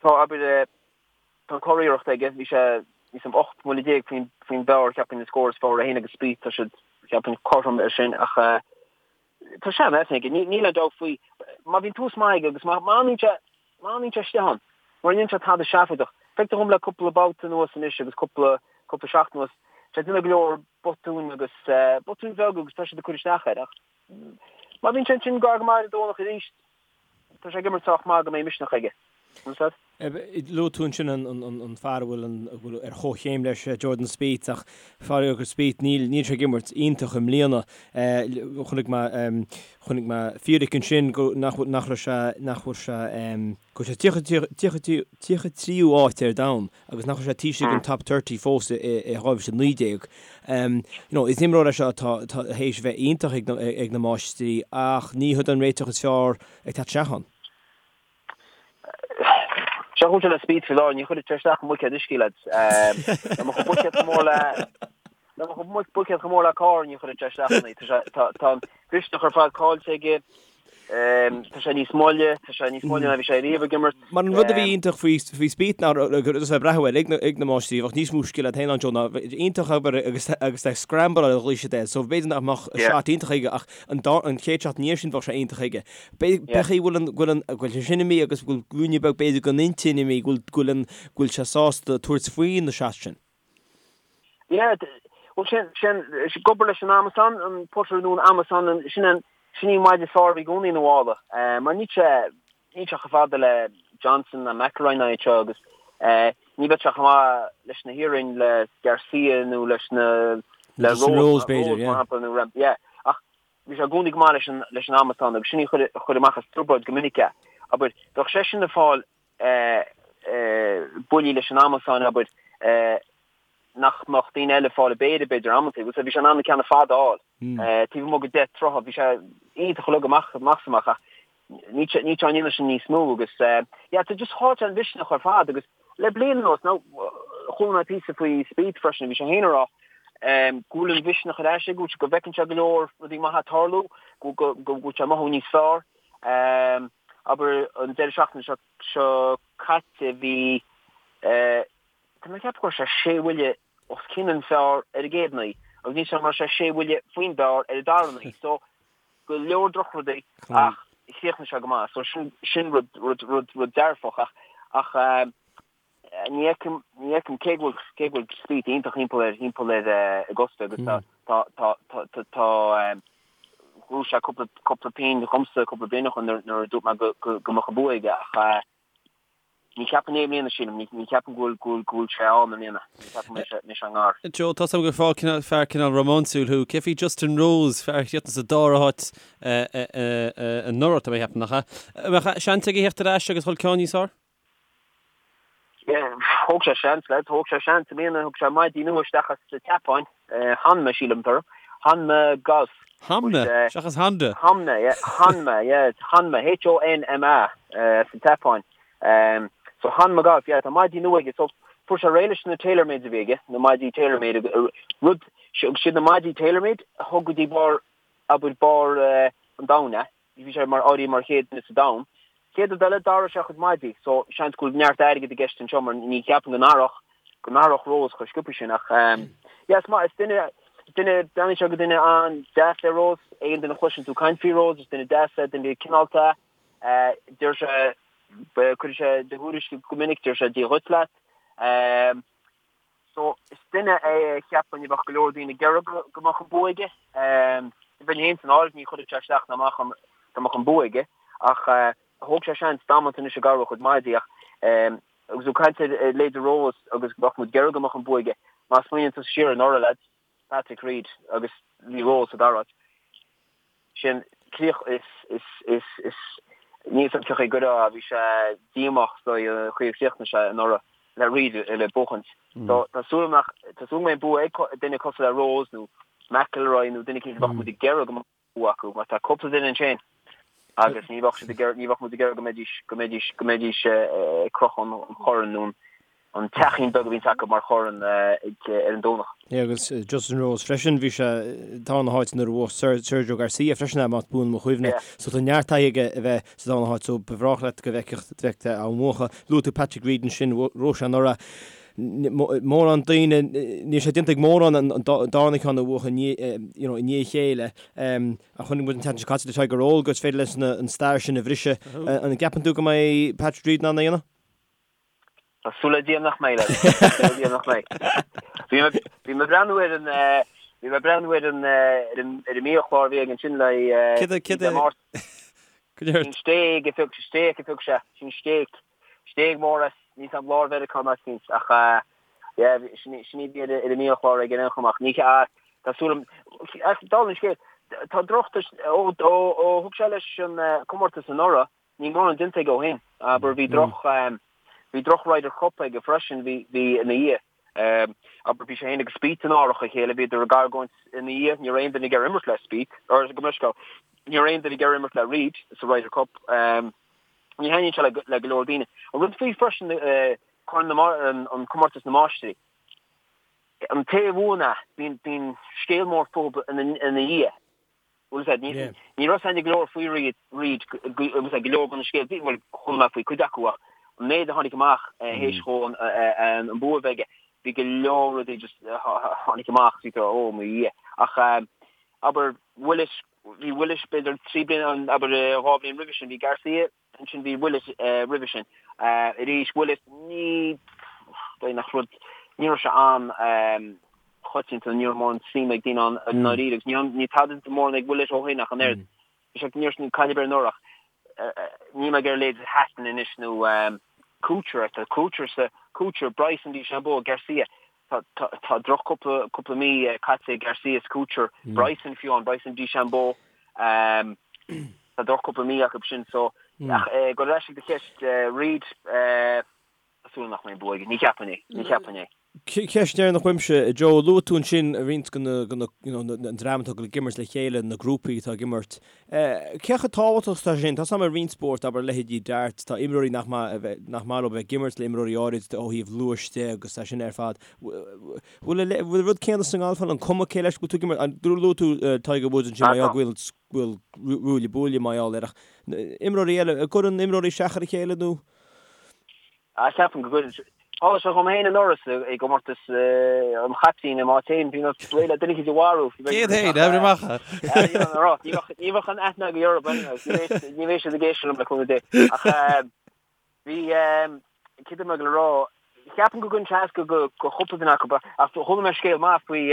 Tá, abair, Tá an curiarracht aige, bhí sé níos mó 18 mbuille faoin faoin bpar, cheapfainn, an scór is fearr, é féin agus Spieth, tá siad, cheapfainn, cothrom ar sin ach tá sean-aithne aige, níl aon dabht faoi. Má bhíonn tús maith aige agus má fhanann sé, má fhanann sé istigh ann, mura ndéanann sé tada seafóideach, feictear dhom le cúpla babhta anuas anois agus cúpla, cúpla seachtain anuas, tá sé ag déanamh go leor botúin agus botúin bheaga agus tá siad ag cur isteach air ach má bhíonn sé ansin gar go maith ar an Domhnach arís, Tá sé ag imirt sách maith go mbeidh misneach aige. Understand? Luaigh tú ansin an fear a bhfuil ar chomhchéim leis, Jordan Spieth, ach faraor do Spieth, níl sé ag imirt iontach i mbliana. Chonaic mé, chonaic mé fíric ansin go, nach nach raibh sé, nach bhfuil sé, go bhfuil sé 33ú áit ar domhan agus nach raibh sé taobh istigh den top 30 fós i 2019. You know, is imreoir é seo atá théis a bheith iontach ag na máistrí ach ní hiod an réiteach is fearr ag teacht isteach ann. Seo chúis le Spieth faoi láthair, ní chuirfidh sé isteach i mbuicéad uisce, lads. Dá mbeadh an buicéad chomh mór le dá mbeadh an buicéad chomh mór le carr ní chuirfidh sé isteach ann é. Tá an mhisneach ar fad caillte aige. Tá sé níos moille, tá sé níos moille ná bhí sé riamh ag imirt. Mar an rud a bhí iontach faoi faoi Spieth ná agus ag breathnú air ag na ag na máistrí, bheadh níos mó scil agat féin ann Joe ná iontach obair agus agus é scramble ar a ghlaoigh siad air. So b'fhéidir nach mbeadh shot iontach aige ach an dá an chéad shot ina dhiaidh sin bheadh sé iontach aige. B'fhéidir go bhfuil an go bhfuil an go bhfuil sé sin imithe agus go bhfuil ruainne beag b'fhéidir den intinn imithe go bhfuil go bhfuil an go bhfuil sé sásta tabhairt faoi na shots sin. Yeah, bhuel sin, sin, ag obair leis an amasán, an putter nó an amasán, sin an, sin í an maide is fearr a bhí i gcónaí ina mhála. Mar níl sé, níl sé chomh fada le Johnson ná McIlroy ná iad seo agus ní bheadh sé chomh maith leis na hiarainn le Garcia nó leis na, le Rose, Rose b'fhéidir, yeah. mar shampla, nó Rahm, yeah. Ach bhí sé i gcónaí go maith leis an, leis an amasán agus sin í a chuir, a chuir amach as trioblóid go minic é. Abair, bheadh seisean ag fáil buillí leis an amasán, abair, nach mbeadh daoine eile ag fáil a péire, b'fhéidir, amantaí. Bhuel, bhí sé in ann na ceanna fada a fháil. Taobh amuigh de 10 troithe, bhí sé iontach uilig amach amach is amach ach níl sé níl sé á ndéanamh sin níos mó agus yeah, tá just chaill sé an mhisneach ar fad agus le bliain anuas, now, chuala mé píosa faoi Spieth freisin, bhí sé féin ag rá go bhfuil an mhisneach ar ais aige, go bhfuil sé, go bhfeiceann sé go leor rudaí maithe ag tarlú, go go go bhfuil sé ag mothú níos fearr. Abair an deireadh seachtaine seo seo caite bhí tá mé ag ceapadh go raibh sé sé bhuille os cionn an phar ar an gcéad naoi agus níl a fhios agam an raibh sé sé bhuille faoin bpar ar an dara naoi so go leor drochrudaí ach chríochnaigh sé go maith so sin sin rud rud rud rud dearfach ach ach Ní fheicim, ní fheicim cé go bhfuil, cé go bhfuil Spieth iontach thimpeall air, thimpeall ar Augusta agus tá, tá, tá, tá, tá, tá, ghnóthaigh sé cúpla, cúpla pingin dhomsa cúpla bliain ó shin nuair, nuair a dúirt mé go, go, go mbeadh an bua aige ach ní cheapaim é i mbliana sílim, ní, ní cheapaim go bhfuil, go bhfuil, go bhfuil sé ann i mbliana, ní cheapaim go mbeidh sé, mbeidh sé i ngar. Joe, tá 's agam gur fear cineál, fear cineál rómánsúil thú. Cé faoi Justin Rose, fear a chríochnaigh sa dara háit anuraidh, tá mé a cheapadh, nach ea? An mbeadh seans aige theacht ar ais agus dhul ceann níos fearr? Thóg sé seans, lad, thóg sé seans i mbliana, thug sé maidí nua isteach as an tSeapáin, Honma sílim atá orthu, Honma Golf. Honma? Seachas Honda? Honma, yeah, Honma, yeah, Honma, H-O-N-M-A, as an tSeapáin. So Honma Golf, yeah, tá maidí nua aige, so fuair sé réidh leis na TaylorMades a bhí aige, na maidí TaylorMade, rud, siad na maidí TaylorMade a thug go dtí barr, abair, barr an domhain é. Bhí sé mar áirithe mar chéad duine sa domhan. Chéad rud eile, d'athraigh sé a chuid maidí, so seans go bhfuil neart airgid i gceist anseo mar ní cheapaim go n-athródh, go n-athródh Rose chomh sciobtha sin ach yeah, is maith, is duine, duine, breathnaíonn sé go duine an-deas é Rose, aon duine a chloiseann tú caint faoi Rose, is duine deas é, duine cineálta é, deir sé, cuirfidh sé do thuairisc go minic, deir sé Dia dhuit leat. So, is duine é a cheapfainn a bheadh go leor daoine ag iarraidh go mbeadh an bua aige. Bheinn féin san áireamh, ní chuirfeadh sé isteach ná amach orm dá mbeadh an bua aige. Ach thóg sé seans damanta anois ag athrú a chuid maidí ach agus tú ag caint ar leithéide Rose agus go mbeadh muid ag iarraidh go mbeadh an bua aige, má smaoiníonn tú siar anuraidh lads, Patrick Reed agus bhí Rose sa dara háit. Sin críoch is is is is níl 's agam cén chaoi a gcuirfeá bhí sé díomách is dóigh an chaoi a chríochnaigh sé anuraidh le Reed le buachaint. So tá súil agam nach tá súil go mbeidh an bua ag duine cosúil le Rose nó McIlroy nó duine éicint a bheadh muid ag iarraidh go mbeadh bua acu mar tá cúpla duine ansin agus ní bheadh siad ag iarraidh ní bheadh muid ag iarraidh go mbeidís go mbeidís go mbeidís ag crochadh an chorn nó an an teachín beag a bhíonns acu mar chorn ar an Domhnach. Yeah, agus Justin Rose freisin, bhí sé sa darna háit nuair a bhuaigh Sergio Garcia freisin, más buan mo chuimhne. So tá neart taithí aige a bheith sa darna háit, so ba bhreá leat go bhfeicfeadh á mbuachan. Luaigh tú Patrick Reed ansin, bhuaigh sé anuraidh. Mórán daoine, níl sé déanta ag mórán an darna ceann a bhuachan i ndiaidh a chéile. Ach chonaic muid an tseachtain seo caite le Tiger Roll gur féidir leis an stair sin a bhriseadh. An gceapann tú go mbeidh Patrick Reed in ann é a dhéanamh? Tá súil le Dia nach mbeidh, lads. Tá súil le Dia nach mbeidh. Bhí mé bhí mé ag breathnú ar an bhí mé ag breathnú ar an ar an ar an mbiachlár a bhí aige ansin le Céard a céard a Dé Máirt. Go léir. Sin stéig a phioc stéig a phioc sé. Sin stéig. Stéig mór as níl 's agam lár Mheiriceá nó áit éicint ach yeah sin sin í a bhí ar ar an mbiachlár aige ar aon chuma ach ní tá súil agam ach dála an scéil tá droch ó ó ó thug sé leis an comórtas anuraidh Níl mórán déanta aige ó shin. Abair, bhí droch, bhí droch Ryder Cup aige freisin, bhí, bhí ina dhiaidh. Abair, bhí sé féin agus Spieth in árach a chéile, bhíodar ag argóint ina dhiaidh, ní raibh aon duine ag iarraidh imirt le Spieth, or gabh mo leithscéal, ní raibh aon duine ag iarraidh imirt le Reed sa Ryder Cup. Ní thaitníonn sé le, le go leor daoine. An rud faoi freisin, Corn na, an Comórtas na Máistrí, an té a bhuann é, bíonn, bíonn scéal mór fúthu ina, ina dhiaidh. Bhfuil a fhios agat, ní raibh a fhios againn go leor faoi Reed, Reed, bhfuil a fhios agat, go leor de na scéalta, bhuel, chuala mé faoi cuid acu ach an méid a tháinig amach théis dhó an bua a bheith aige, bhí go leor rudaí just a tháinig amach, bhí tú, ó mo Dhia. Ach abair Willett, bhí Willett b'fhéidir 3 bliana, abair 2 bhliain roimhe sin, bhí Garcia, Ansin bhí Willett roimhe sin. Arís, Willett, ní, b'fhéidir nach rud, ní raibh sé an-choitianta, ní raibh mórán suim ag daoine ann i ndáiríre agus ní tada mórán ag Willett ó shin ach an oiread. Bhí sé, ní raibh caid ar bith anuraidh ach níl mé ag iarraidh leithéid Hatton anois nó Kuchar, tá Kuchar sa, Kuchar, Bryson DeChambeau, Garcia, Tá tá droch cúpla cúpla mí caite ag Garcia is Kuchar, Bryson fiú amháin, Bryson DeChambeau. Tá droch cúpla mí acu sin so ach go ar ais ag do cheist Reed tá súil nach mbeidh an bua aige. Ní cheapfainn é. Ní cheapfainn é. Ceist dheireanach uaimse, Joe, luaigh tú ansin roinnt de na you know an dream atá ag imirt le chéile, na grúpaí atá ag imirt. Cé chomh tábhachtach is atá sé sin? Tá a fhios agam i roinnt spórt, abair leithéidí darts, tá imreoirí nach maith nach maith leo bheith ag imirt le imreoirí áirid ó thaobh luais de agus é sin ar fad. Bhfuil an rud céanna sa ngalf ann, an cuma cé leis go bhfuil tú ag imirt? An luaigh tú Tiger Woods ansin mar gheall go bhfuil go bhfuil ruaille buaille mar gheall air ach imreoirí eile, an gcuireann imreoirí isteach ar a chéile nó? Ah, ceapaim go gcuireann. Tharla sé dhom féin anuraidh i gcomórtas an chaiptín i m'áit féin, bhí mé réidh le duine eicínt a mharú. Céad féin, oibre amach. Ní bheadh an aithne agaibh orthu anyway, ní bheidh siad ag éisteacht liom le cúnamh Dé. Ach bhí, céard a bhí mé ag rá, ceapaim go gcuireann sé as go chúpla duine acu, ach chuala mé scéal maith faoi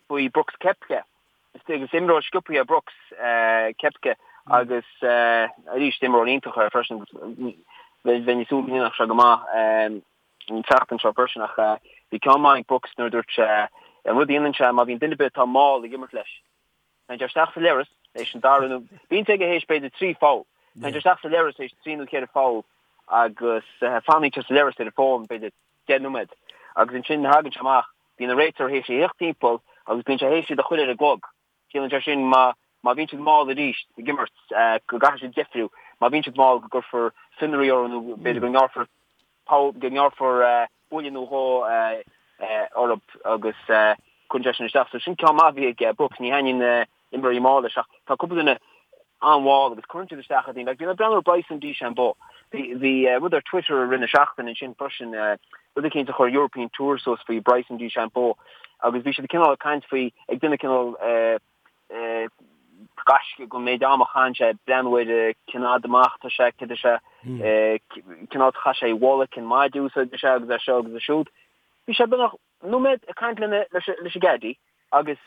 faoi Brooks Koepka. Is imreoir sciobtha é Brooks Koepka agus arís imreoir iontach é freisin agus bheinn ag súil go ndéanfadh sé go maith an tseachtain seo freisin ach bhí ceann maith ag Brooks nuair a dúirt sé an rud a dhéanann sé má bhíonn duine ar bith atá mall ag imirt leis téann sé isteach sa leithreas théis an dara nó bíonn sé aige théis b'fhéidir 3 pholl téann sé isteach sa leithreas théis 3 nó 4 pholl agus fanann sé sa leithreas ar an bhfón b'fhéidir 10 nóiméad agus ansin thagann sé amach Bíonn an réiteoir théis a thíocht timpeall agus bíonn sé théis iad a chur ar an gclog. Ciallaíonn sé sin má má bhíonn siad mall arís ag imirt go gcaithfidh siad deifriú, má bhíonn siad mall go gcuirfear fionraí orthu nó b'fhéidir go ngearrfar poll go ngearrfar buille nó dhó orthu agus cuireann sé sin isteach. So sin ceann maith a bhí ag Brooks. Ní thaitníonn imreoirí mall leis ach tá cúpla duine an-mhall agus cuireann siad isteach ar dhaoine. Like, bhí mé ag breathnú ar Bryson DeChambeau. Bhí, bhí rud ar Twitter i rith na seachtaine ansin freisin, rud eicínt a chuir European Tour suas faoi Bryson DeChambeau agus bhí siad cineál ag caint faoi, ag déanamh cineál gaisce den méid ama a chaitheann sé ag breathnú ar cén fhad amach atá sé, céard é sé, cén áit a chaith sé a bhalla, cén maide a úsáideann sé agus é seo agus é siúd. Bhí sé beagnach nóiméad ag caint lena, leis an gcaddie agus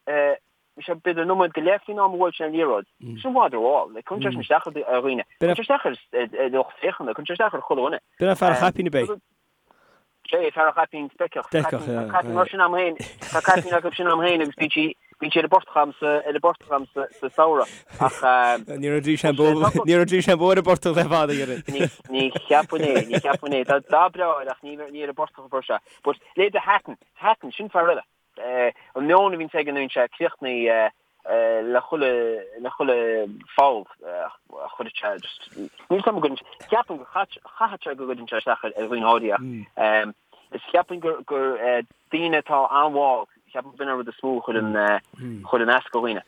bhí sé b'fhéidir nóiméad go leith faoin am a bhuail sé an liathróid. Sin i bhfad rómhall. Like, cuireann sé sin isteach ar dhaoine. Cuireann sé isteach ar lucht féachana, cuireann sé isteach ar chuile dhuine. B'in é fear an chaipín ab é? Sé, fear an chaipín speiceach. Speiceach, yeah. Tá caipín mar sin a'm féin, tá caipín acu sin a'm féin agus bíonn sí, bíonn sí ar an bportach a'm sa, ar an bportach a'm sa, sa samhradh. Ach, Ní raibh DeChambeau, ní raibh DeChambeau ar an bportach le fada, dhéarfainn. Ní, ní cheapfainn é, ní cheapfainn é. Tá dath breá air ach ní, ní ar an bportach a fuair sé. But leithéide Hatton, Hatton, sin fear eile. An meon a bhíonns aige nuair a bhíonn sé críochnaithe le chuile, le chuile pholl a chuireann sé just, níl 'fhios a'm go gcuireann, ceapaim go chaithfeadh sé go gcuireann sé isteach ar dhaoine áirithe ach is cheapfainn gur, gur daoine atá an-mhall, ceapaim gurb in an rud is mó a chuireann, chuireann as do dhaoine.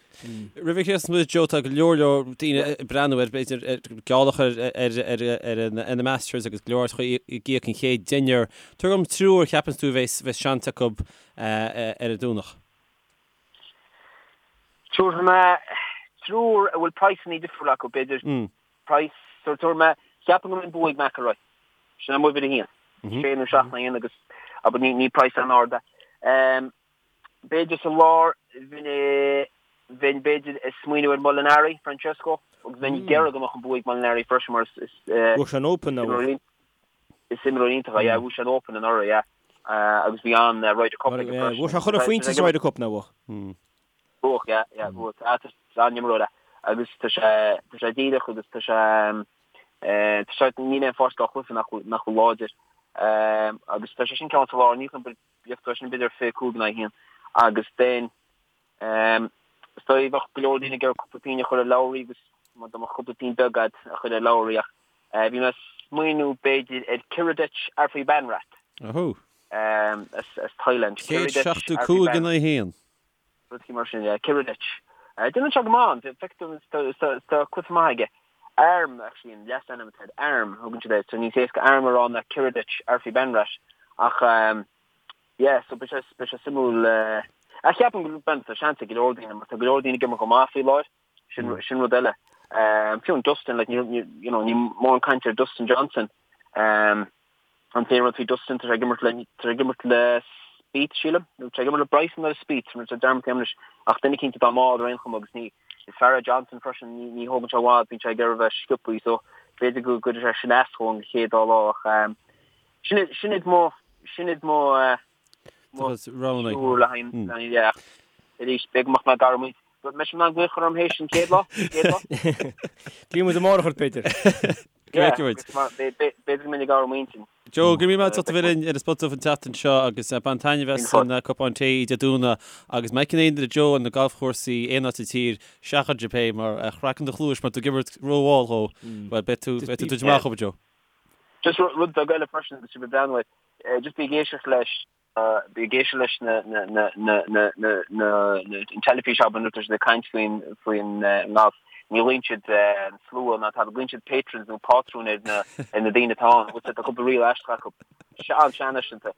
Roimh a chríochnós muid, Joe, tá go leor leor daoine ag breathnú ar, b'fhéidir, geall a chur ar na Masters agus go leor áiteacha ag íoc an chéad deichniúr. Tabhair dom triúr a cheapanns tú a bheas seans acu ar an Domhnach. Tabharfaidh mé triúr a bhfuil praghsanna difriúla acu, b'fhéidir. Praghas, tabharfaidh mé, cheapfainn go mbeidh an bua ag McIlroy. Sin m'uimhir a haon. Sé nó seacht in aghaidh a haon agus, abair, ní praghas an-ard é. B'fhéidir sa lár, bheinn, bheinn b'fhéidir ag smaoineamh ar Molinari, Francesco, agus bheinn ag iarraidh go mbeadh an bua ag Molinari freisin mar is, Bhuaigh sé an Open, nach bhfuair? Is imreoir iontach é, yeah, bhuaigh sé an Open anuraidh, yeah, agus bhí an Ryder Cup aige freisin. Bhuaigh sé chuile phointe sa Ryder Cup, nach bhfuair? Bhuaigh, yeah, yeah, bhuaigh. Ah, tá sé an-imreoir é agus tá sé, tá sé díreach agus tá sé, tá sé, níl aon pháirc dá chluiche nach bhfuil, nach bhfuil láidir. Agus tá sé sin ceann sa lár, ní Bheadh sin b'fhéidir 25 in aghaidh 1 agus then is dóigh bheadh go leor daoine ag iarraidh cúpla pingin a chur ar Lowry agus má dá mbeadh cúpla pingin beag agat a chur ar Lowry ach bhí mé ag smaoineamh b'fhéidir ar Kiradech Aphibarnrat as Thailand. 175 in aghaidh 1. Rud mar sin, yeah, Kiradech. Déanann sé go maith, feictear dom tá cluiche maith aige. Arm, actually, an leasainm atá air, Arm, thugann siad air, so níos éasca Arm a rá ná Kiradech Aphibarnrat ach yeah, so beidh sé, beidh sé suimiúil. Ach ceapaim go bhfuil tá seans ag go leor daoine mar tá go leor daoine ag imirt go maith faoi láthair, sin, sin rud eile. Fiú an Dustin, like, ní, ní, you know, ní mórán cainte ar Dustin Johnson. An t-aon rud faoi Dustin, tá sé ag imirt le, tá sé ag imirt le Spieth, sílim, nó tá sé ag imirt le Bryson nó le Spieth, tá mé dearmadta anois, ach duine eicínt atá mall ar aon chuma agus ní, is fear é Johnson freisin, ní, ní thógann sé i bhfad, bíonn sé ag iarraidh a bheith sciobthaí, so b'fhéidir go gcuirfidh sé sin as dhó an chéad dá lá ach sin iad, sin iad mo, sin iad mo, mo triúr le haghaidh, le haghaidh, yeah. Arís, b'fhéidir go mbeadh mé ag athrú m'intinn. Beidh sibh in ann glaoch orm théis an chéad lá? Chéad lá? Glaofaidh muid amárach ort, b'fhéidir. Go bhfeicfidh muid. B'fhéidir go mbeinn ag athrú m'intinn. Joe, go raibh míle maith agat as ucht a bheith linn ar an Spota Dubh an tseachtain seo agus bain taitneamh as an cupán tae Dé Domhnaigh agus má fheiceann aon duine Joe ar na galfchúrsaí aon áit sa tír, seachain é mar chraiceann do chluais má tá tú ag imirt rómhall dhó, bhuel beidh tú beidh tú duit amach, Joe. Just rud beag eile freisin agus sibh ag breathnú air, just bí ag éisteacht leis Bí ag éisteacht leis na an teilifís abair nuair atá siad ag caint faoin faoin ngalf. Ní ghlaonn siad an slua ná tada, glaonn siad patrons nó pátrúin ar na ar na daoine atá ann. Bhfuil tá cúpla riail aisteach acu. An-seanfhaiseanta.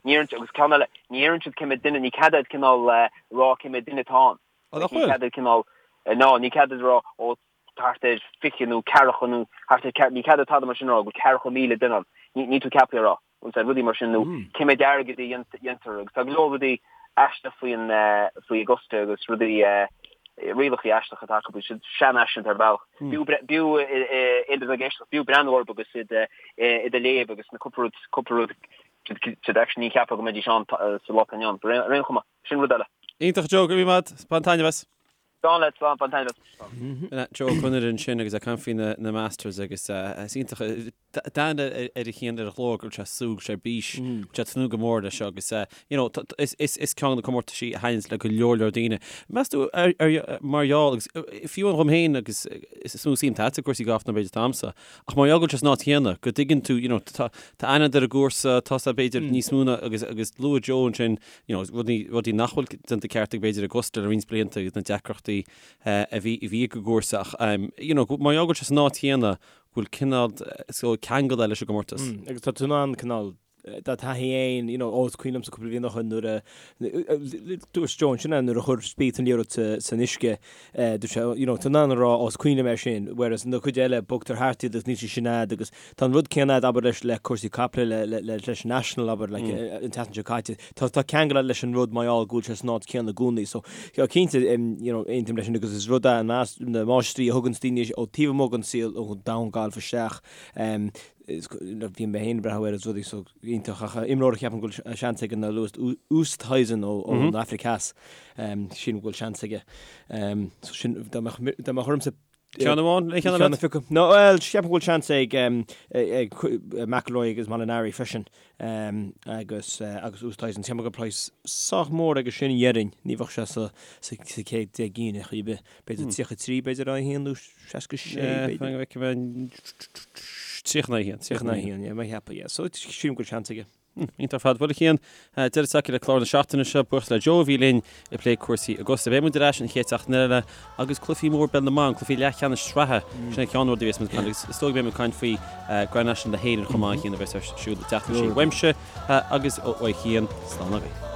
Ní deireann agus ceann eile, ní deireann siad cé mhéad duine, ní cead duit cineál rá cé mhéad duine atá ann. Ní cead duit cineál, ná ní cead duit rá ó thart ar 20 nó ceathracha nó thart ar, ní cead duit tada mar sin a rá, go bhfuil ceathracha 1,000 duine ann. Níl tú ceaptha a rá. Agus rudaí mar sin nó cé mhéad airgead a dhéantar agus tá go leor rudaí aisteach faoin faoi Augusta agus rudaí rialacha aisteacha atá acu, siad seanfhaiseanta ar bhealach. B'fhiú b'fhiú aon duine ag éisteacht, b'fhiú breathnú orthu agus iad iad a léamh agus na cúpla rud cúpla rud siad actually ní cheapfá go mbeidís ann sa lá atá inniu ann. Ar aon chuma, sin rud eile. Iontach Joe, go raibh míle maith agat, bain taitneamh as. Slán leat, slán, bain taitneamh as. Joe Ó Conaire ansin agus ag caint faoi na Masters agus is iontach d'aithne ar a chian ar a ghlór go bhfuil sé ag súil, go bhfuil sé ar bís, go bhfuil sé ag tnúth go mór leis seo agus you know is is is ceann de na comórtaisí a thaitníonns le go leor leor daoine. Meas tú ar ar mar gheall agus fiú amháin dhom féin agus is mó suim atá agat i gcúrsaí gailf ná b'fhéidir atá a'msa ach mar gheall go bhfuil sé san áit chéanna go dtuigeann tú you know tá tá aithne ar an gcúrsa tá sé b'fhéidir níos mó ná agus agus luaigh Joe ansin you know rudaí rudaí nach bhfuil déanta ceart ag b'fhéidir Augusta le roinnt blianta agus na deacrachtaí a bhí a bhí ag an gcúrsa ach you know mar gheall go bhfuil sé san áit chéanna go bhfuil cineál so ceangal leis an gcomórtas. Agus tá tú in ann cineál do thaithí fhéin, you know, ó is cuimhin liomsa cúpla bliain ó shin nuair a dúirt Joe ansin nuair a chuir Spieth an liathróid san uisce, dúirt sé, you know, tá tú in ann a rá, ó is cuimhin liom é sin, whereas na cuid eile bogtar thart iad agus níl sé sin a'd agus tá an rud céanna a'd abair leis le cúrsaí caiple le le le leis an National abair like an tseachtain seo caite. Tá tá ceangal a'd leis an rud mar gheall go bhfuil sé san áit céanna i gcónaí so cinnte you know aontaím leis sin agus is rud é na na máistrí a thugann daoine ó taobh amuigh den saol ón domhan gailf isteach bhí mé féin ag breathnú air is rudaí so iontach ach imreoir a cheapaim go bhfuil seans aige ná Louis Oosthuizen ó ón Afraic Theas sílim go bhfuil seans aige so sin dá mbeadh dá mbeadh ormsa Ceann amháin, aon cheann eile? No, bhuel, ceapaim go bhfuil seans ag ag McIlroy agus Molinari freisin agus agus Oosthuizen. Ceapaim go bhfuil praghas sách mór aige sin dhéarfainn, ní bheadh sé sa sa chéad 10 gcinn ar chaoi ar bith. B'fhéidir 33 b'fhéidir a 1 nó 66 b'fhéidir. 31, 31, yeah, mar cheapadh, yeah. So sílim go bhfuil seans aige. Iontach ar fad. Bhuel a Chian, deireadh tagtha le clár na seachtaine seo. Buíochas le Joe a bhí linn ag plé cúrsaí Augusta. Beidh muid ar ais an chéad seachtain eile agus cluichí mór peil na mban, cluichí leathcheannais sraithe. Sin an ceann rud a bheas muid ag caint agus is dóigh go mbeidh muid ag caint faoi Grand National na hÉireann chomh maith a Chian a bheas ar siúl an tseachtain seo. Uaimse agus ó Chian, slán agaibh.